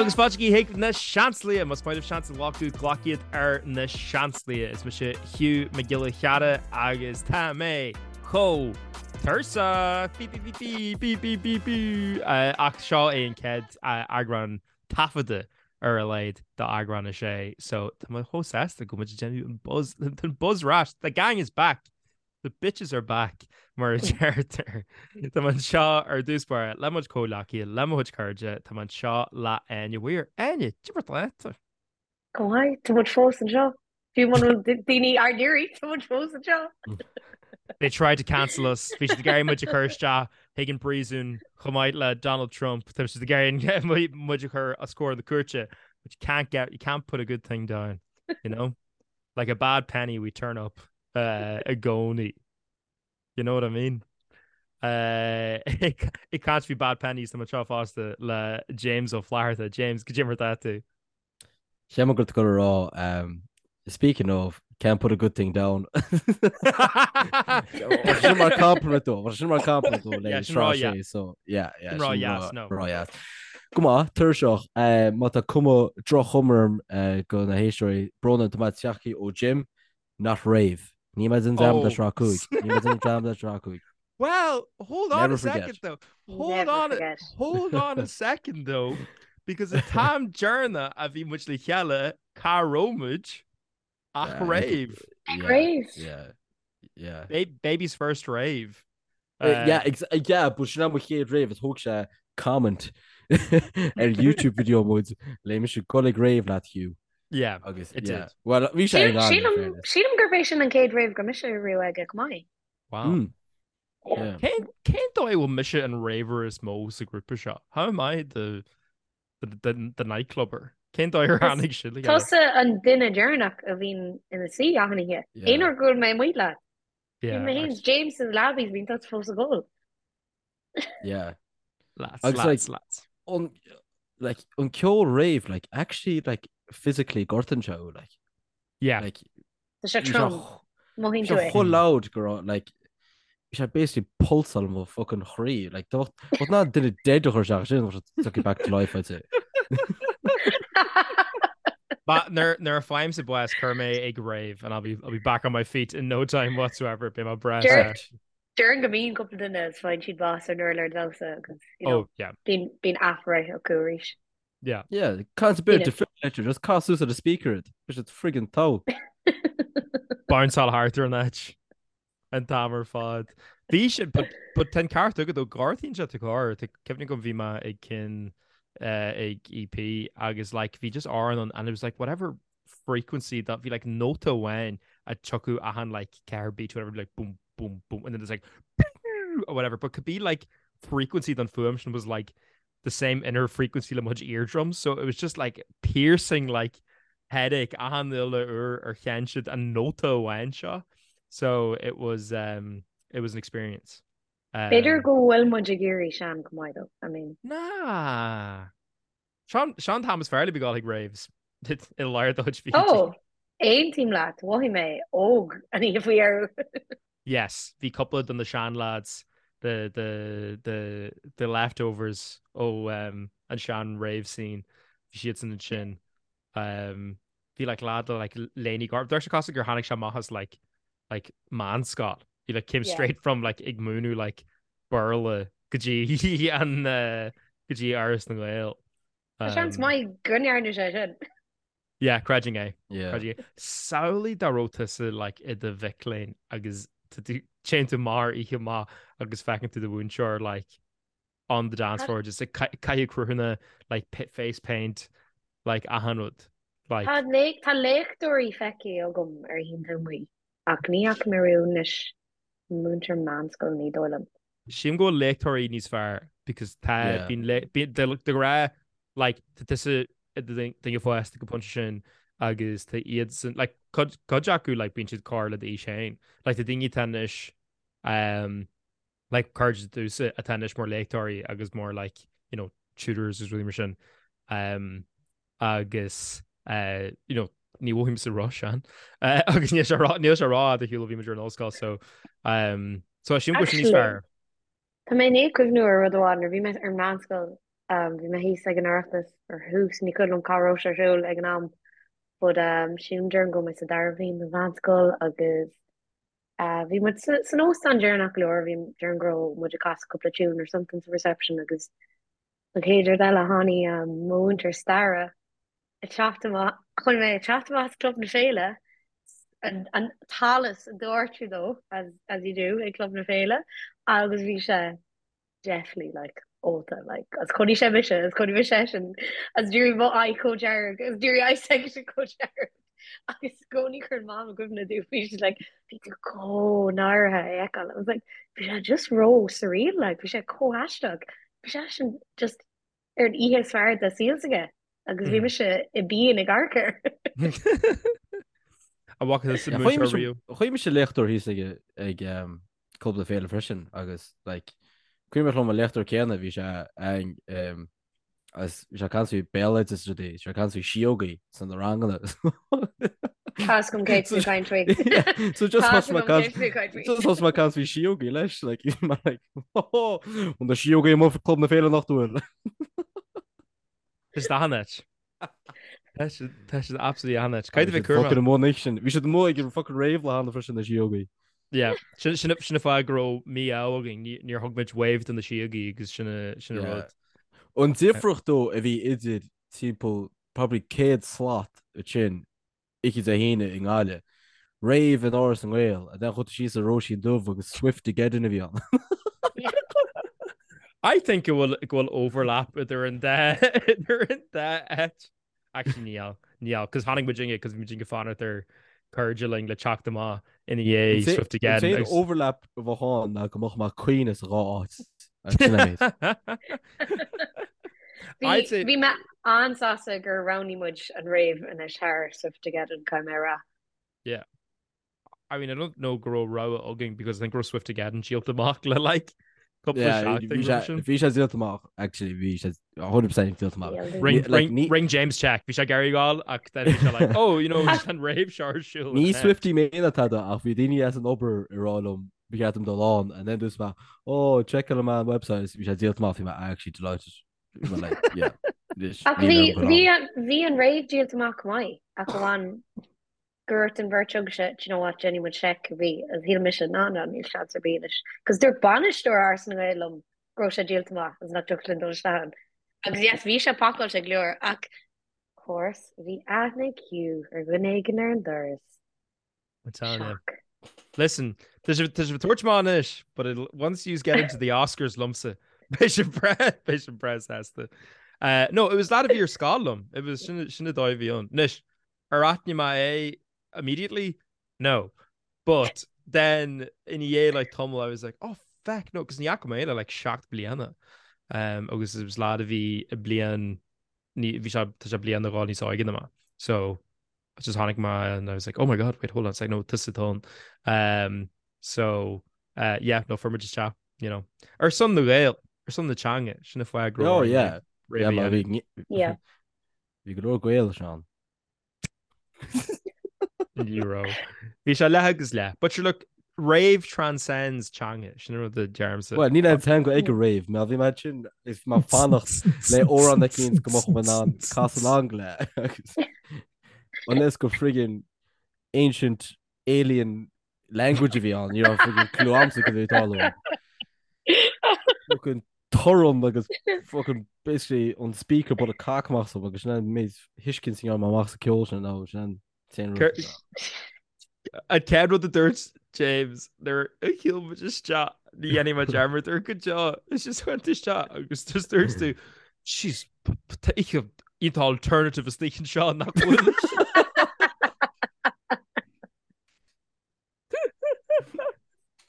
Agus fáilte chuig na Seansálaithe, más maith libh seans a ghlacadh, glac iad ar na Seansálaithe. Is mise Hugh Mac Giolla Chearra agus tá mé chomh tuirseach! Bí bí bí bí bí bí bí Ach seo é an chéad eagrán taifeadta ar a laghad d'eagrán a sé so tá mé chomh sásta go bhfuil muid ag déanamh an buzz an buzz ar ais. The gang is back! The bitches are back, mar a deirtear. Tá mé anseo ar dtús báire le mo chuid comhghleacaithe, le mo chuid cairde, tá mé anseo le Áine Weir. Áine, cad é mar atá tú? Go maith, tá muid fós anseo. Fiú muna bhfuil daoine ár n-iarraidh, tá muid fós anseo. They tried to cancel us. Bhí siad ag iarraidh muid a chur isteach chuig an bpríosún chomh maith le Donald Trump. Tá siad ag iarraidh muid a chur os comhair na cúirte. But you can't get, you can't put a good thing down, you know? Like a bad penny we turn up i gcónaí. You know what I mean? Ag caint faoi bad pennies tá mé anseo fosta le James Ó Flatharta. James, cad é mar atá tú? Cheap mé go raibh tú ag dul a rá, speaking of, can't put a good thing down. Sin mar compliment dó, sin mar compliment dó le sra sé, so yeah, yeah, Rá dheas, no. Rá dheas. Go maith, tuirseach, má tá cuma droch-chuma orm go na héisteoirí, brón orm, tá mé tagtha ó gym, not rave. Níl mé den dream le sraith 5. Níl mé den dream le sraith 5. Well, hold on Never a second forget. though. Hold Never on, forget. hold on a second though, because an t-am deireanach a bhí muid le chéile, cá raibh muid ach Yeah, rave. Yeah, Rave. Yeah, yeah. Ba- baby's first rave. Yeah, ex- yeah, but sin mo chéad rave is thóg sé comment ar YouTube video muid le mise gul ag rave leat Hugh. Yeah, Agus it yeah. did. Well, bhí sé Sílim in ann, in sílim fairness. sílim gurb é sin an chéad rave go raibh mise riamh aige chomh maith. Wow. Mm. Yeah. Cén cén dóigh a bhfuil mise an raver is mó sa grúpa seo? How am I the the the, the nightclubber? Cén dóigh ar tháinig sin le chéile? Tusa an duine deireanach a bhíonn ina suí achan oíche. Yeah. Aon uair go bhfuil mé amuigh leat. Yeah, Bíonn mé féin actually. James is labbies bíonn tusa fós ag ól. Yeah. Lads, Agus, lads, like, lads. An like an ceol rave like actually like physically gortaíonn sé thú like Yeah. like Tá sé bhí sé trom. ch- Mothaíonn bhí tú sé é. chomh loud go raibh like bhí sé basically pulsáil mo fucking chroí like tá bheadh ná duine dead a chur isteach sin bheadh sé tucking back to life I'd say. But nuair nuair a fhaighimse bás cuir mé ag rave and I'll be I'll be back on my feet in no time whatsoever beidh mé breá Deir- set. Déarfainn go mbíonn cúpla duine is faigheann siad bás ar an urlár damhsa agus you know, Oh yeah. bíonn bíonn athbhreith acu arís. Yeah. Yeah, caint a bit Yeah. defibrillator just cas suas ar the speaker it. Bhí sé friggin togha. Bounceáil thart ar an áit an t-am ar fad. Bhí sin but but tá an ceart agat ó gortaíonn sé do chorp Tá cuimhne agam bhí mé ag cinn eh, ag EP agus like bhí just amhrán ann and it was like whatever frequency that bhí like nóta amháin a tiocfadh achan like ceathair beat whatever like boom boom boom and then it's like or whatever but could be like frequency don fuaim sin was like the same inner frequency le mo chuid eardrums so it was just like piercing like headache achan uile uair ar sheinn siad an nóta amháin seo so it was um it was an experience. Um, B'fhéidir go bhfuil muid ag éirí sean chomh maith though. I mean, Nah. Seo seo an t-am is fearr le bheith ag gabháil chuig raves i lár do chuid fichidí. oh, aontaím leat, mhothaigh mé óg an oíche faoi dheireadh. Yes, bhí cúpla de na seanlads, the, the, the, the leftovers ó um, an sean rave scene, bhí siadsan ansin. Um, bhí like lad le like léine gorm. Deir sé cosúil gur tháinig sé amach as like, like meánscoil. He like came Yeah. straight from like ag múineadh like Béarla go dtí an uh, go dtí Áras na nGael. Tá seans Um, maith go ndearna sé sin. Yeah, creidim é. Yeah. Creidim é. Samhlaigh dá raibh tusa like i do mhic léinn agus tá tú- téann tú amach ar oíche amach agus feiceann tú do mhúinteoir like on the dance floor just ag ca- caitheamh cruthanna like pit face paint like achan rud like Tá lé- tá léachtóirí feicthe agam ar oícheanta amuigh ach ní fhaca mé riamh anois múinteoir meánscoile ní dóigh liom. Sílim go bhfuil léachtóirí níos fearr because tá Yeah. bíonn lé- bíonn de de ghnáth like tá tusa i do duine fásta ag an bpointe sin agus tá iadsan like cuid cuid acu like bíonn siad corr le d'aois féin like tá daoine atá anois um, like cairde domhsa atá anois mar léachtóirí agus mar like you know tutors is rudaí mar sin um, agus uh, you know ní mhothaímse róshean uh, agus níl sé rá níl sé rófhada ar shiúl ó bhí muid ar an ollscoil so um, so sílim go bhfuil sé níos Actually, fearr. tá mé i ndiaidh cuimhniú ar rud amháin nuair a bhí mé ar meánscoil. Bhí mé thíos ag an Oireachtas ar thús, ní cuimhin liom cá raibh sé ar siúl ag an am, but sílim déarfainn go raibh mé sa dara bhliain den mheánscoil agus bhí muid san óstán deireanach go leor, bhí déarfainn go raibh muid ag casadh cúpla tune or something sa reception agus an chéad rud eile tháinig mo mhúinteoir staire ag teacht amach, chonaic mé ag teacht amach as Club na Féile, an t-allas ag doirteadh dó, as, as you do ag Club na Féile, agus bhí sé definitely like ólta, like, agus chonaic sé mise, agus chonaic mise eisean, agus d'éirigh mo aghaidh chomh dearg, agus d'éirigh aghaidh s'aigesean chomh dearg, agus i gcónaí cuireann Mam i gcuimhne domh, bhí sí like, bhí tú chomh náirithe é a fheiceáil, I was like, bhí sé just ró surreal, like, bhí sé chomh aisteach, bhí seisean just ar an oíche is fearr dá saol s'aige agus bhí mise i bpian ag amharc air. An bhfaca tusa múinteoir riamh? Chonaic mise léachtóir thíos ag ag Club na Féile freisin agus like cuimhneach liom an léachtóir céanna bhí sé ag agus bhí sé ag caint faoi béaloideas is rudaí, bhí sé ag caint faoi síógaí sna ranganna. Tá 'fhios agam cé tú ag caint faoi. So just thosaigh mé ag caint faoi síógaí leis, like, mar like, oh, an na síógaí amuigh Club na Féile nach bhfuil. Is achan áit. Tá siad absolutely achan áit. Cad a bhí cúrma? Fucking amuigh an sin. Bhí siad amuigh ag an fucking rave lá cheana freisin na síógaí. Yeah, sin sin an fáth go raibh mí-ádh againn, níor thug muid wave do na síógaí agus sin sin an rud. An difríocht dó a bhí idir timpeall probably 100 slat ansin oíche Dé hAoine i nGaillimh. Rave in Áras na nGael, and then chuaigh tú síos ar Róisín Dubh agus Swiftogeddon a bhí ann. I think go bhfuil go bhfuil overlap idir an dá idir an dá áit. Actually níl, níl, cos tháinig muid inge, cos bhí muid ag fanacht ar cairde linn le teacht amach ina dhiaidh Swiftogeddon. An t-aon overlap a bheadh ann ná go mbeadh mé ag caoineadh sa dhá áit. Sin an méid. Bhí mé an-sásta gur roghnaigh muid an rave anois thar Swiftogeddon, caithfidh mé a rá. Yeah. I mean, I don't know go raibh rogha againn because I think go raibh Swiftogeddon díolta amach le like cúpla seachtain roimhe sin. Bhí sé díolta amach, actually, bhí sé 100% díolta amach. Ring, ring, ring James check, bhí sé ag iarraidh gabháil ach then bhí sé like, oh, you know, an rave seo ar siúl. Ní Swiftie mé ná tada ach bhí daoine as an obair ag rá liom ba cheart dom dul ann and then dúirt mé, oh, checkáil mé an website bhí sé díolta amach, bhí mé actually delighted. Bhí mé like, yeah. Ach bhí, bhí, bhí an rave díolta amach go maith ach amháin go ndúirt an bheirt agaibhse, do you know what, déanfaidh muid seic, bhí, agus shíl mise, ná, ná, níl seans ar bith anois. Cos dúirt bainisteoir Áras na nGael liom go raibh sé díolta amach agus nach dtiocfadh linn dul isteach ann. Agus yes, bhí sé pacáilte go leor ach, of course, bhí aithne ag Hugh ar dhuine éigin ar an doras. I'm telling you. Shock. Listen, tá sibh tá sibh ag tabhairt amach anois, but it'll, once you get into the Oscars liomsa, beidh sibh breá, beidh sibh breá sásta. Uh, no, it was lad a bhí ar scoil liom. It was sin sin an dóigh a bhí ann. Anois, ar aithnigh mé é immediately? No. But then ina dhiaidh like tamall I was like, oh feck, no, cos ní fhaca mé é le like 7 bliana. Um, agus it was lad a bhí i bliain ní bhí sé tá sé bliain nó dhó níos óige ná mé. So just tháinig mé and I was like, oh my god, wait, hold on a sec, no, tusa atá ann. Um, so, uh, yeah, no, fuair muid isteach, you know. Ar son na Gael, ar son na teanga, sin an fáth go raibh Oh, yeah. Yeah, ma bhí Yeah. Bhí go leor Gael, Seán. Ní raibh. Bhí sé leath agus leath. But sure, look, rave transcends teanga, sin an rud a deirimse. Well, níl aon teanga ag an rave, má bhí mé sin is mé ag fanacht le amhrán eicínt go mbeadh mé in ann casadh along le. Agus Unless gur friggin ancient alien language a bhí ann, ní raibh friggin clue a'msa cad é atá ann. Fucking torann agus fucking basically an speaker bualadh cac amach asam agus sin an méid thuiscint a ndearna mé amach sa ceol sin nó sin an t-aon rud. An chéad rud a dúirt James nuair a shiúil muid isteach ní dhéanfaidh mé dearmad air go deo is just went isteach agus just dúirt tú Jeez, tá oíche iontach alternative istigh anseo nach bhfuil.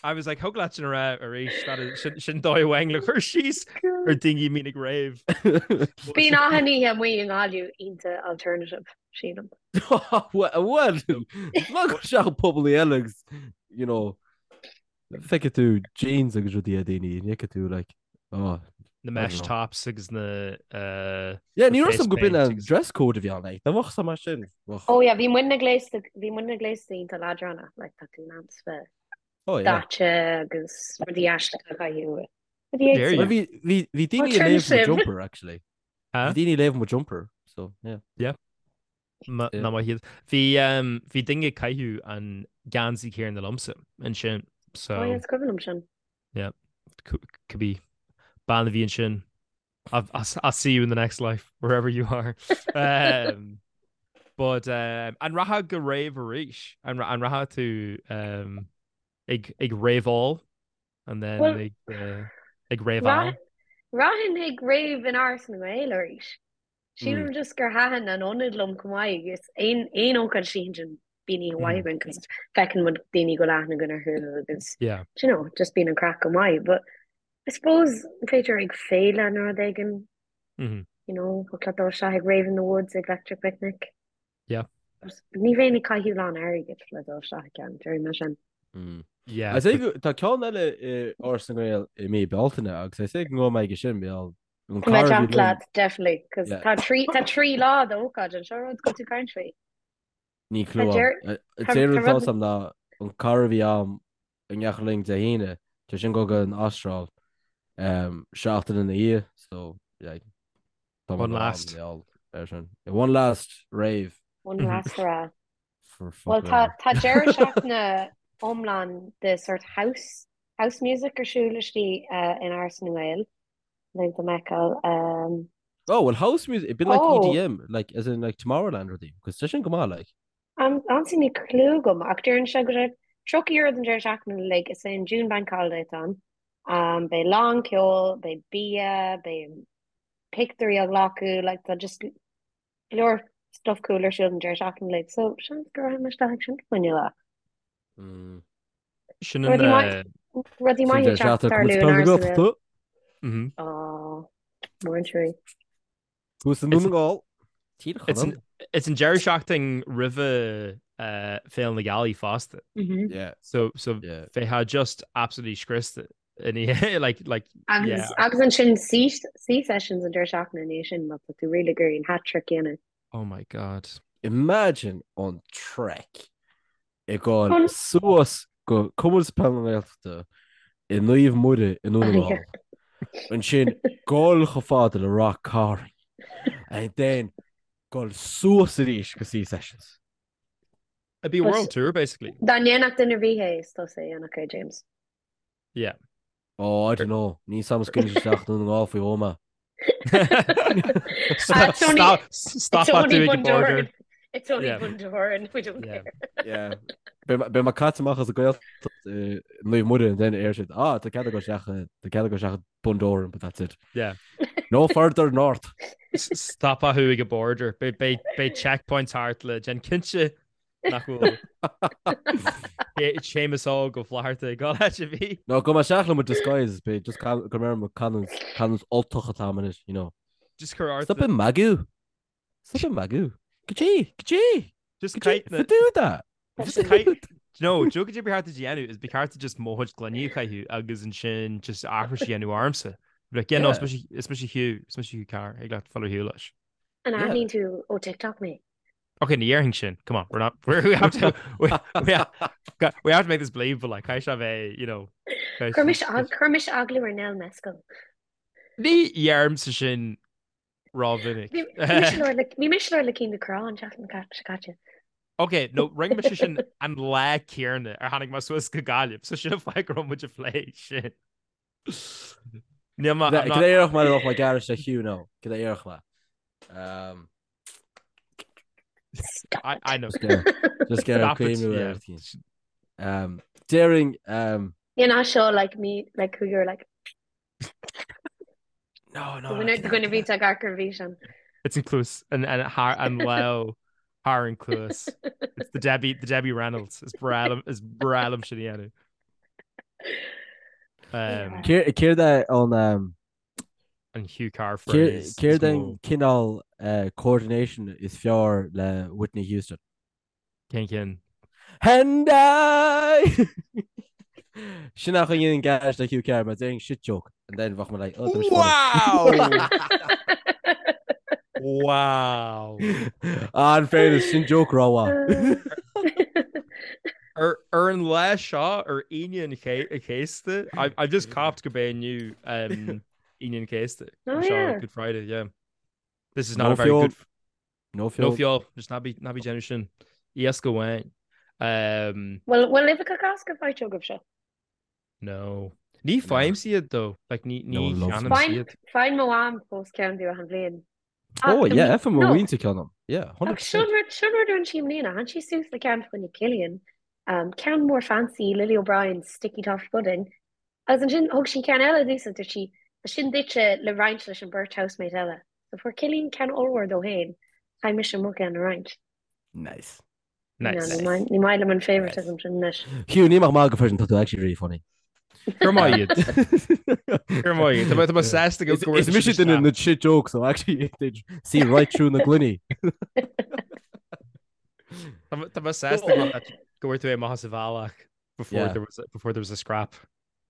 I was like, thig leat sin a rá arís, that is, sin, sin dóigh amháin le cur síos ar daoine a mbíonn ag rave. Bíonn achan oíche amuigh i nGaillimh iontach alternative, sílim. Well, má go seach pobal eile agus, you know, feicfidh tú jeans agus rudaí ar daoine, ní fheicfidh tú, like, oh, Na mesh tops agus na uh, Yeah, ní raibh go b'in an dress code a bhí ann, like, dá mbeadh sa mar sin. Oh yeah, bhí muidne gléasta, bhí muidne gléasta iontach leadránach, like, tá tú in ann bheith Oh yeah. daite agus rudaí aisteacha a chaitheamh. Rudaí Dare éagsúla. you. Bhí bhí bhí daoine Ó, ag trim léamh mo sibh. jumper actually. Huh? Bhí daoine ag léamh mo jumper, so yeah. Yeah. Ma- Yeah. Ná maith iad. Bhí um, bhí duine ag caitheamh an geansaí céanna liomsa ansin. So Oh, yeah, is cuimhin liom sin. yeah, could be bean a bhí ansin. I'll, I'll, I'll see you in the next life, wherever you are. Um, but um, an rachfá go rave arís? An, an rachfá tú um, ag, ag raveáil and then Well, ag, uh, ag raveáil? Rachainn ag rave in Áras na nGael arís. Sílim just gur thaitin an ionad liom chomh maith agus aon aon ócáid istigh ansin bíonn oíche mhaith againn cos feiceann muid daoine go bhfuil aithne againn orthu agus Yeah. do you know, just bíonn an craic go maith. But I suppose b'fhéidir ag féile nó rud éigin, Mm-hmm. you know, thiocfadh leat dul isteach ag Rave in the Woods ag Electric Picnic. Yeah. Ní bheinn ag caitheamh lán airgid le dul isteach ag ceann, déarfaidh mé sin. Mm. Yeah. I say go- tá ceann eile i Áras na nGael i mí Bealtaine agus I say go ngabhfaidh mé aige sin mar an Tá mé cara a bhí teacht liom leat, definitely, cos Yeah. tá trí tá trí lá d'ócáid anseo rud go tú caint faoi. Ní Tá clue deir agam. tá An t-aon tá rud atá rud 'fhios a'm ná an cara a bhí a'm i ndeachaigh linn Dé hAoine, tá sin ag dul go an Astráil seachtain ina dhiaidh, so yeah, tá mé One ag dul last. an ar sin. One last rave. One last hurrah. For Well fuck tá all. tá deireadh seachtaine iomlán de sort house house music ar siúl istigh in Áras na nGael le do mheiceáil. Um, Oh, well house music, it'd been like oh, EDM, like as in like Tomorrowland rudaí, cos tá sin go maith like. Honestly níl clue agam ach deireann sé go raibh 30 euro don deireadh seachtaine uilig, is é an June Bank Holiday atá ann. Um, beidh lán ceoil, beidh bia, beidh pictiúirí á ghlacadh, like tá just go leor stuff cool ar siúl don deireadh seachtaine uilig, so seans go rachaidh mé isteach ag sin fá choinne lá. Mm. Sin an Rudaí maith, rudaí Sin maith ag deireadh teacht seachtaine tarlú Cumann in Peile na Áras na Gaeltachta. Gael. Mhm. Ó, mór an trua. Thuas i nDún na nGall. Tír It's Chonaill. an, it's an deireadh seachtain roimhe uh, Féile na Gealaí fosta. Mhm. Yeah. So so Yeah. bheifeá just absolutely scriosta in í like like Agus yeah. agus ansin sea sea sessions an deireadh seachtaine ina dhiaidh sin má tá tú really ag iarraidh an hat trick a dhéanamh. Oh my god. Imagine an trek ag dul An suas go Cumann Peile na Gaeltachta i Naomh Muire i nDún na yeah. nGall. Ansin dul chomh fada le Ráth Cairn and then dul suas arís go Sea Sessions. It'd be a But world tour basically. dá ndéanfadh duine ar bith é is tusa a dhéanfadh é James. Yeah. Oh, I don't know. Níl 'fhios a'm an scaoilfidh isteach Dún na nGall faoi dhó mé. Ah, it's only Stop, it's stop at only doing the border. Bundoran. It's only Yeah. Bundoran. We don't Yeah. care. Yeah. Beidh mé caite amach as an Ghaeltacht i Naomh Muire and then ar siad, ah, tá cead agat isteach tá cead agat isteach Bundoran, but that's it. Yeah. No further north. Stopfaidh thú ag an border. Beidh beidh beidh checkpoints thart le déanamh cinnte nach bhfuil Séamus Óg Ó Flatharta ag dul áit ar bith. No, gabhfaidh mé isteach le mo disguise, beidh just go mbeidh mo canúint canúint Ultach atá agam anois, you know. Just cuir ort Stop ag magadh. Stop ag magadh. Goidé, goidé, Just goidé, caith na do that. Just caith No, do goidé ba cheart duit a dhéanamh is ba cheart duit just mo chuid gloiní a chaitheamh agus ansin just aithris a dhéanamh ormsa. Like, yeah, no, Yeah. is mise is mise Hugh, is mise Hugh Carr, ag leat fáil ar shiúl leis. An Yeah. aithníonn tú ó TikTok mé? Okay, ní dhéarfainn sin. Come on, we're not we're, we have to we, we, have, we have to make this believable like caithfidh sé bheith, you know. caithfidh Chuir mise sé- ag- chuir mise agallamh ar Nell Mescal. Ní dheirimse sin rómhinic. Bhí bhí mise ag labhairt le bhí mise ag labhairt le Cian Ducrot an tseachtain seo caite. Ok, no, rinne mise sin an lá céanna ar tháinig mé suas go Gaillimh, so sin an fáth go raibh muid ag plé sin. Níl mé, I'm Cad not, é a déarfadh mé dá mbeadh mé ag gearradh le Hugh now? Cad é a déarfadh mé? Um, Stop I, it. I know. just get just get Stop it, cuimhniú yeah. ar tí. Um, Déarfainn um, You're not sure like me, like who you're like. no, no, no, Duine duine bhí ag amharc ar bhí It's an cluas an an thar an lámh thar an cluas. It's the Debbie the Debbie Reynolds is breá liom is breá liom sin a dhéanamh. Um, Céard é an um, an Hugh Carr phrase is Céard mó. an cineál uh, coordination is fearr le Whitney Houston? Cén cinn? And I! Sin nach an gas le Hugh Carr, mar déarfainn shit joke and then bheadh mé like, oh, tá mise funny. Wow! Wow! Ah, in fairness, sin joke rómhaith. Ar Ar an lá seo, ar Aoine an Chéasta, I've just copped go b'é inniu um, Aoine an Chéasta. Oh, Seo yeah. Good Friday, yeah. This is not No a very feol. good... No No feol. feol, just ná bí, ná bí déanamh sin. Iasc amháin. Um, Bhfuil bhfuil uibheacha Cásca faighte agaibhse? no. Ní faighimse iad though. Like, ní, No ní one loves them. cheannaimse Faigheann iad. faigheann mo mham fós ceann domh achan bhliain. Oh, Ach, yeah, fhaigheann mo no. mhuintir ceann dom. Yeah, Ach 100%. sin rud sin rud a rinne sí i mbliana. Tháinig sí suas le ceann fá choinne Cillian. Um, ceann mór fancy, Lily O'Brien's Sticky Toffee Pudding. Agus ansin thug sí ceann eile domhsa, dúirt sí, "Tá sin duitse le roinnt leis an beirt housemate eile. So fuair Cillian ceann ollmhór dó féin, chaith mise mo cheann a roinnt. Nice. Nice. No, ní maith ní maith liom an favoritism sin anois. Hugh, ní maith maith go freisin tá tú actually really funny. Gur maith iad. Gur maith iad. Tá mé- tá mé sásta go go Is bhfuil mise siad duine isteach. na shit jokes, so actually they see right through na gloiní. Tá mé- tá mé sásta go bhfuil- go bhfuil tú amach as an bhealach before Yeah. there was a, before there was a scrap.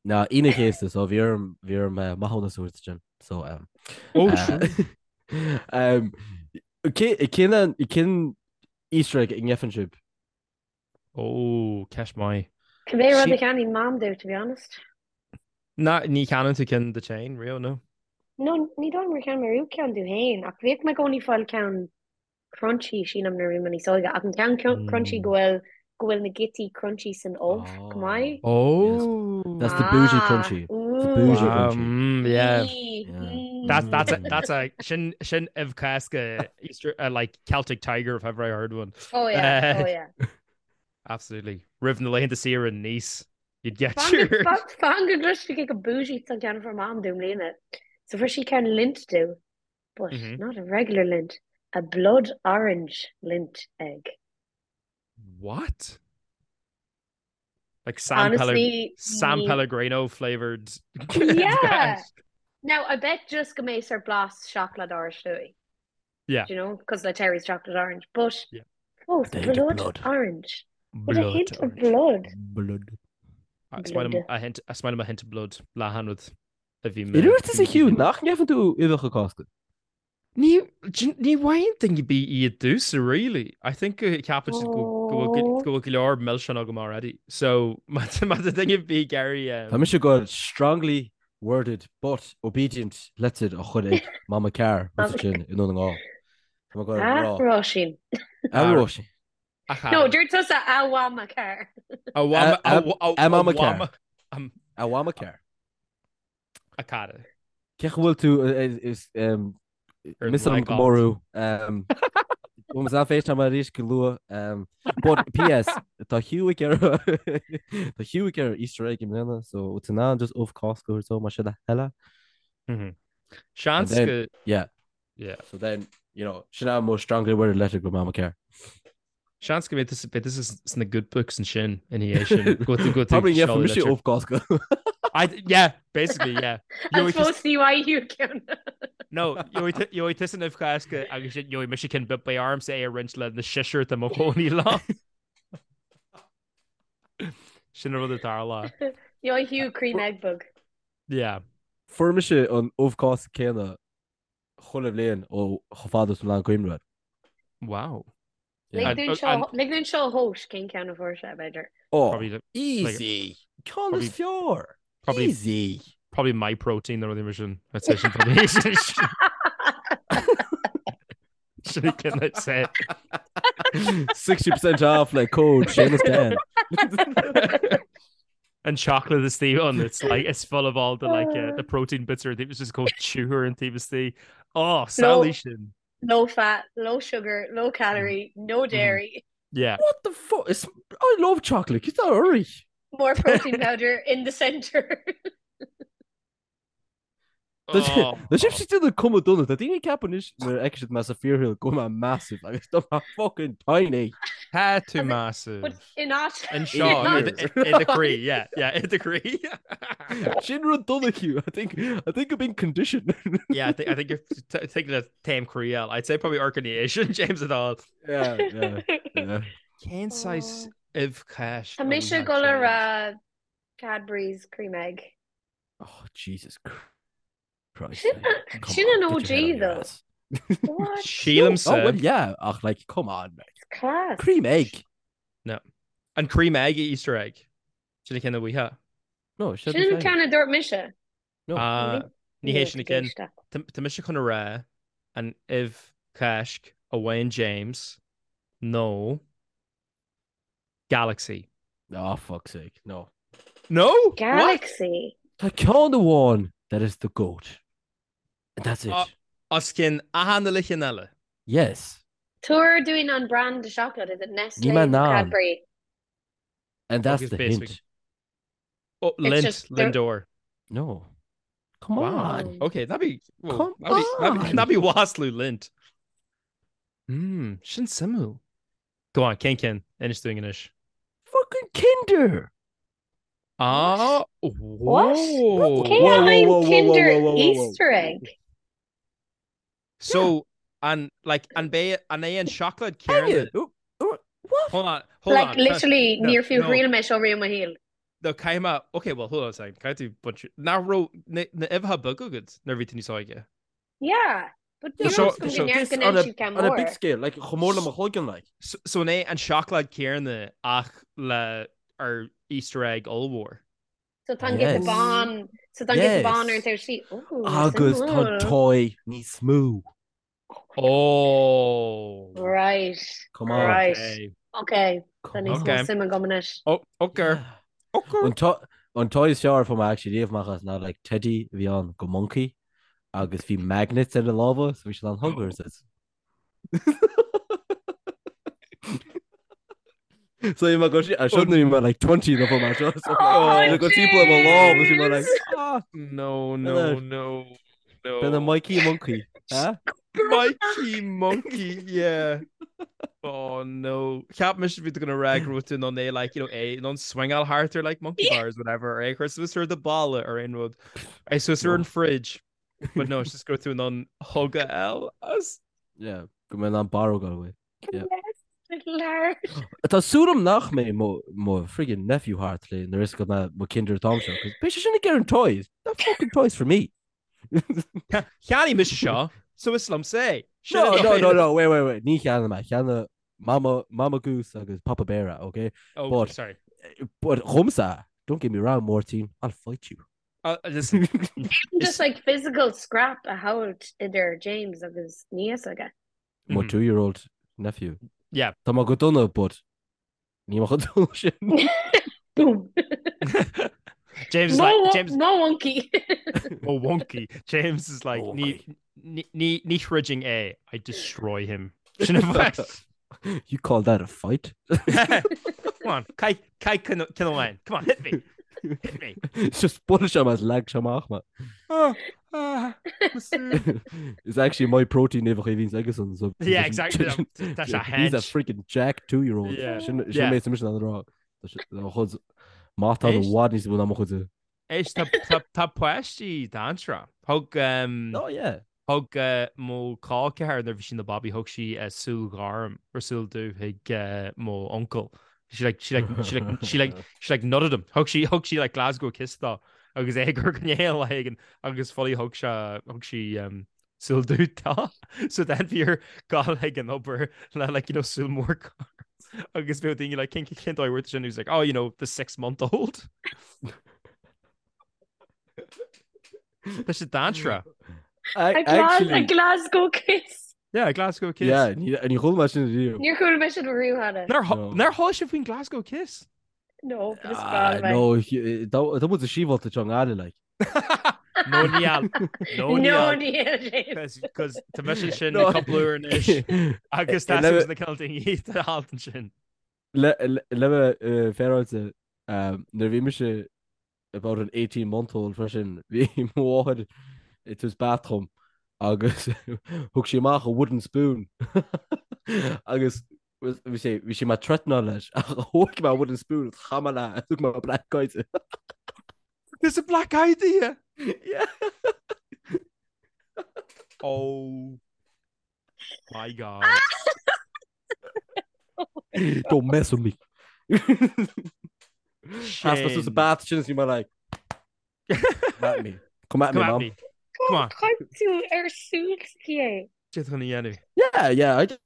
Ná Aoine an Chéasta, so bhí orm bhí orm eh, maithiúnas a thabhairt sin. So um, Oh, eh, true. um, cé- cén an- cén Easter egg a ngeibheann sibh? Oh, ceist maith. Cibé rud Sí- a cheannaíonn Mam domh, to be honest. Ná, ní cheannaíonn tú ceann duit féin, riamh, no? No, ní dóigh liom gur cheannaigh mé riamh ceann domh féin, ach bhíodh mé i gcónaí ag fáil ceann crunchy, sílim, nuair a bhí mé níos óige, ach an ceann crunchy go bhfuil go bhfuil na giotaí crunchy san ubh, go maith. Oh. That's the bougie Ah, crunchy. The bougie Wow, crunchy. mm, yeah. Yeah. That's that's a that's a sin sin ubh Cásca Easter uh, like Celtic Tiger if ever I heard one. Oh yeah, Uh, oh yeah. Absolutely. Roimh na laethanta saoire in Nice, you'd get Fan your fan go gcloisfidh cé chomh bougie is an ceann a fuair Mam domh i mbliana. So fuair sí ceann Lindt domh, but Mhm. not a regular Lindt, a blood orange Lindt egg. What? Like San Pelleg Honestly, San ní Pellegrino flavored Yeah. Now, I bet just go mbeidh sórt blas seacláid oráiste. Yeah. Do you know? Because like Terry's chocolate orange, but Yeah. fós The hint of blood blood. orange. With a Blood hint of orange. blood. Blood. Is maith liom Blood. a hint is maith liom a hint of blood le rud a bhí mé Dúirt tusa Hugh nach ngeibheann tú uibheacha Cásca? Ní ní bhfaigheann duine ar bith iad domhsa really. I think go ceapann siad go go bhfuil Oh. go bhfuil go leor milseán agam already. So má má tá duine ar bith ag iarraidh Tá mise ag goil strongly worded but obedient letter a chur ag Mama Carr Mama sin i nDún na nGall. Tá mé ag goil A rá. Róisín. A Róisín. a No, chara. dúirt tusa a Mhama Carr. A mhama A- a a a a Mama Carr. mhama um, A Mhama Carr. a cara. Cé go bhfuil tú is Ar miss an go mór thú. Bhfuil an FaceTime arís go luath. But PS tá Hugh ag iarraidh tá Hugh ag iarraidh Easter egg i mbliana so tú in ann just ubh Cásca a thabhairt dó más é do thoil. Mhm. Seans And then- go Yeah. yeah. So then, you know, sin é mo strongly worded letter go Mama Carr. Seans go mbeidh tusa beidh tusa sna good books ansin ina dhiaidh sin. Go tú go tú Probably yeah, seoladh mise litir. ubh Cásca. I yeah, basically yeah. An Gheobhaidh tusa fós ní bhfaighidh Hugh ceann. No, gheobhaidh tu- gheobhaidh tusa an ubh Chásca agus sin gheobhaidh mise ceann but beidh ormsa é a roinnt le na seisear atá i mo chónaí liom. Sin an rud atá tarlaithe. Gheobhaidh Hugh cream egg beag. Yeah. Fuair mise an ubh Cásca céanna chuile bhliain ó chomh fada is atá mé in ann cuimhneamh air. Wow. Lig And- dúinn and- seo lig dúinn seo a thomhas cén ceann a fuair sé, b'fhéidir. Oh, Probably the- easy. Ceann probably- is fearr. Probably Easy. probably my protein nó rudaí mar sin. I'd say sin probably sin ceann I'd say. 60% off le code Seamus Dan. And chocolate istigh ann it's like it's full of all the like uh, the protein bits or it was just called chewer an taobh istigh. Oh, samhlaigh sin. Low fat, low sugar, low calorie, no dairy, Yeah. What the fuck? It's, I love chocolate. Get that hurry. more protein powder in the center. Oh. Tá sibh déanamh cuma dona Tá daoine ag ceapadh anois nuair a fheiceann siad mé sa fíorshaol go bhfuil mé massive agus tá mé fucking tiny. Tá tú But massive. in áit Anseo In i do chroí, yeah, yeah, i do chroí. Sin rud dona Hugh. I think I think I've been conditioned. Yeah, I think I think you're t- thinking of taobh croí eile. I'd say probably Arcanation, James at all. Yeah, yeah, yeah. Cén saghas ubh Cháisc Tá mise ag dul a rá Cadbury's cream egg. Oh Jesus Christ. Sin Come sin on, an get your head OG out of your though. ass. What? Sílimse Oh well, yeah. Ach, like, come on, mate. It's class. Cream egg. No. An cream egg Easter egg. Sin an ceann a bhfuitheá. No, sin an ceann a dúirt mise. No. Ah, ní hé sin an ceann. Tá mise chun a rá an ubh Cháisc a bhain James nó Galaxy. Oh, fuck's sake, no. No? Galaxy? Tá ceann amháin that is the goat. And that's it. Os cionn achan uile cheann eile. Yes. Tabhair dúinn an brand de seacláid, is it Nestlé Ní mé nó ná. Cadbury? And that's Focus the basically. hint. Oh, It's Lindt, just the- Lindor. No. Come Wow. on. Okay, that'd be well, Come that'd be, that'd be, on. that'd be wasslú Lindt. Hmm, sin suimiúil. Go on, cén ceann, inis dúinn anois. Fucking Kinder. Ah, What? whoa. Cé Whoa, whoa, an whoa, whoa, whoa, Kinder whoa, whoa, whoa, whoa. Easter egg? So, an like an bé an é an seacláid Hang céanna? it. Oh, oh, What? Hold on, hold Like on. literally No, níor fiú no. thriail mé seo riamh i mo shaol. No, caithfidh mé, okay, well, hold on a second. Caithfidh tú bunch nach raibh na na uibheacha beaga agat nuair a bhí tú níos óige? Yeah, but So níl seo- fhios agam so go This ndearc go on ndéan a, siad ceann on a big mór. scale, like chomh mór le mo chloigeann, like. So, so an é an seacláid céanna ach le ar Easter egg ollmhór? So tá an giota Yes. bán, so tá an giota bán ar an Yes. taobh sí. Ooh, Agus tá suimiúil. toy níos mó. Oh. Right. Come on. Right. Okay. Okay. Tá Come níos on. mó Okay. suime agam anois. Oh, okay. Yeah. Okay. An to- an toy is fearr a fuair mé actually riamh amach as ná like teddy a bhí ann go monkey agus bhí magnets ar a lámha so bhí siad an huggers is. So bhí mé go sí- seo nuair a bhí mé like 20 nó mar seo so Oh, go timpeall ar mo lámh agus bhí mé like James! ah No, no, B'in a- no, no. b'in a Mikey Monkey. Huh? Mikey Monkey, yeah. Oh no. Cheap mise bhí tú gonna rá go raibh tú in ann é like, you know, é in ann swingáil thart ar like monkey bars whatever, ar é chur suas ar do balla ar aon rud. É suas ar an fridge. But no, it's just go raibh tú in ann hug a fháil as. Yeah, go mbeidh an barróg away. Yeah. Large. Tá súil agam nach mbeidh mo mo friggin nephew thart le nuair is go mbeidh mo Kinder t-am seo, 'cause beidh sé sin ag iarraidh an toys. That fucking toys for me. Cheannaigh mise seo, so is liomsa é. Sin No, an no, no, dóigh. no, wait, wait, wait. Ní cheannaigh mé. Cheannaigh Mama, Mama Goose agus Papa Bear, é, okay? Oh, But- sorry. But dhomsa, don't get me wrong, Máirtín, I'll fight you. Uh, listen, Just like physical scrap a thabhairt idir James agus niece aige. Mo Mhm. two-year-old nephew. Yeah. Tá mé go dona, but níl mé chomh dona sin. Boom. James is Mo like, wo- James, mo wonky. oh wonky. James is like, Mo ní, wonky. ní, ní, ní throidfinn é, I destroy him. Sin a bheith. You call that a fight? Come on, Kai, Kai Kinnaman. Come on, hit me. Hit me. It's just buail sé as lag sé amach me. Oh, ah, Mr. It's actually my protein uimhir a bhíonns aigesan, so Yeah, exactly. Tá sé He's a hench. freaking jack two-year-old. Yeah. Sin sin Yeah. mé sin an rá. Tá chuid má tá Éist. bhfad níos mó ná mo chuid. Éist, tá- tá- tá páistí dainséarach. Thug, um, Oh yeah. Thug uh, mo chol ceathar nuair a bhí sí ina babaí, thug sí uh, súil ghorm or súil dubh chuig uh, mo uncail. She like she like she like she like she like nutted him. Thug sí thug sí like Glasgow kiss dó agus é ag cur gnéal lá éigin agus fully thug sé thug sí um, súil dubh dó. So then bhí air gabháil ag an obair le like you know súil mór gorm. agus bhí daoine like cén cén dóigh bhfuair tú sin? He was like oh you know the 6 month old. Tá sé dainséarach. A I Glas- a actually Glasgow kiss. Yeah, Glasgow kiss. Yeah, ní ní chuala mé sin riamh. Níor chuala mé sin riamh cheana. Nár No. nár chuala sibh faoin Glasgow kiss? No, but is Ah, breá liom é. no, tá muid sa síbhálta seo nGaillimh like. No níl. No No níl. níl, James. Cos tá mise sin No. cúpla uair anois agus tá Le- na cineál daoine a haltan sin. Le le bheith féaráilte nuair a bhí mise about an 18 month old freisin, bhí mo mháthair ag tabhairt bath dhom agus thug sí amach a wooden spoon agus bhí sé bhí sí mé threatenáil leis ach thóg mé wooden spoon agus chaith mé leis thug mé black eye di. There's a black eye di? Yeah. Oh my God. Don't mess with me. Sheas mé suas sa bath sin is bhí mé like Come at me. Come at me, Come at mom. me. Come on. Chaith tú ar súil s'aici é. Cad chun a dhéanamh. Yeah, yeah, I did.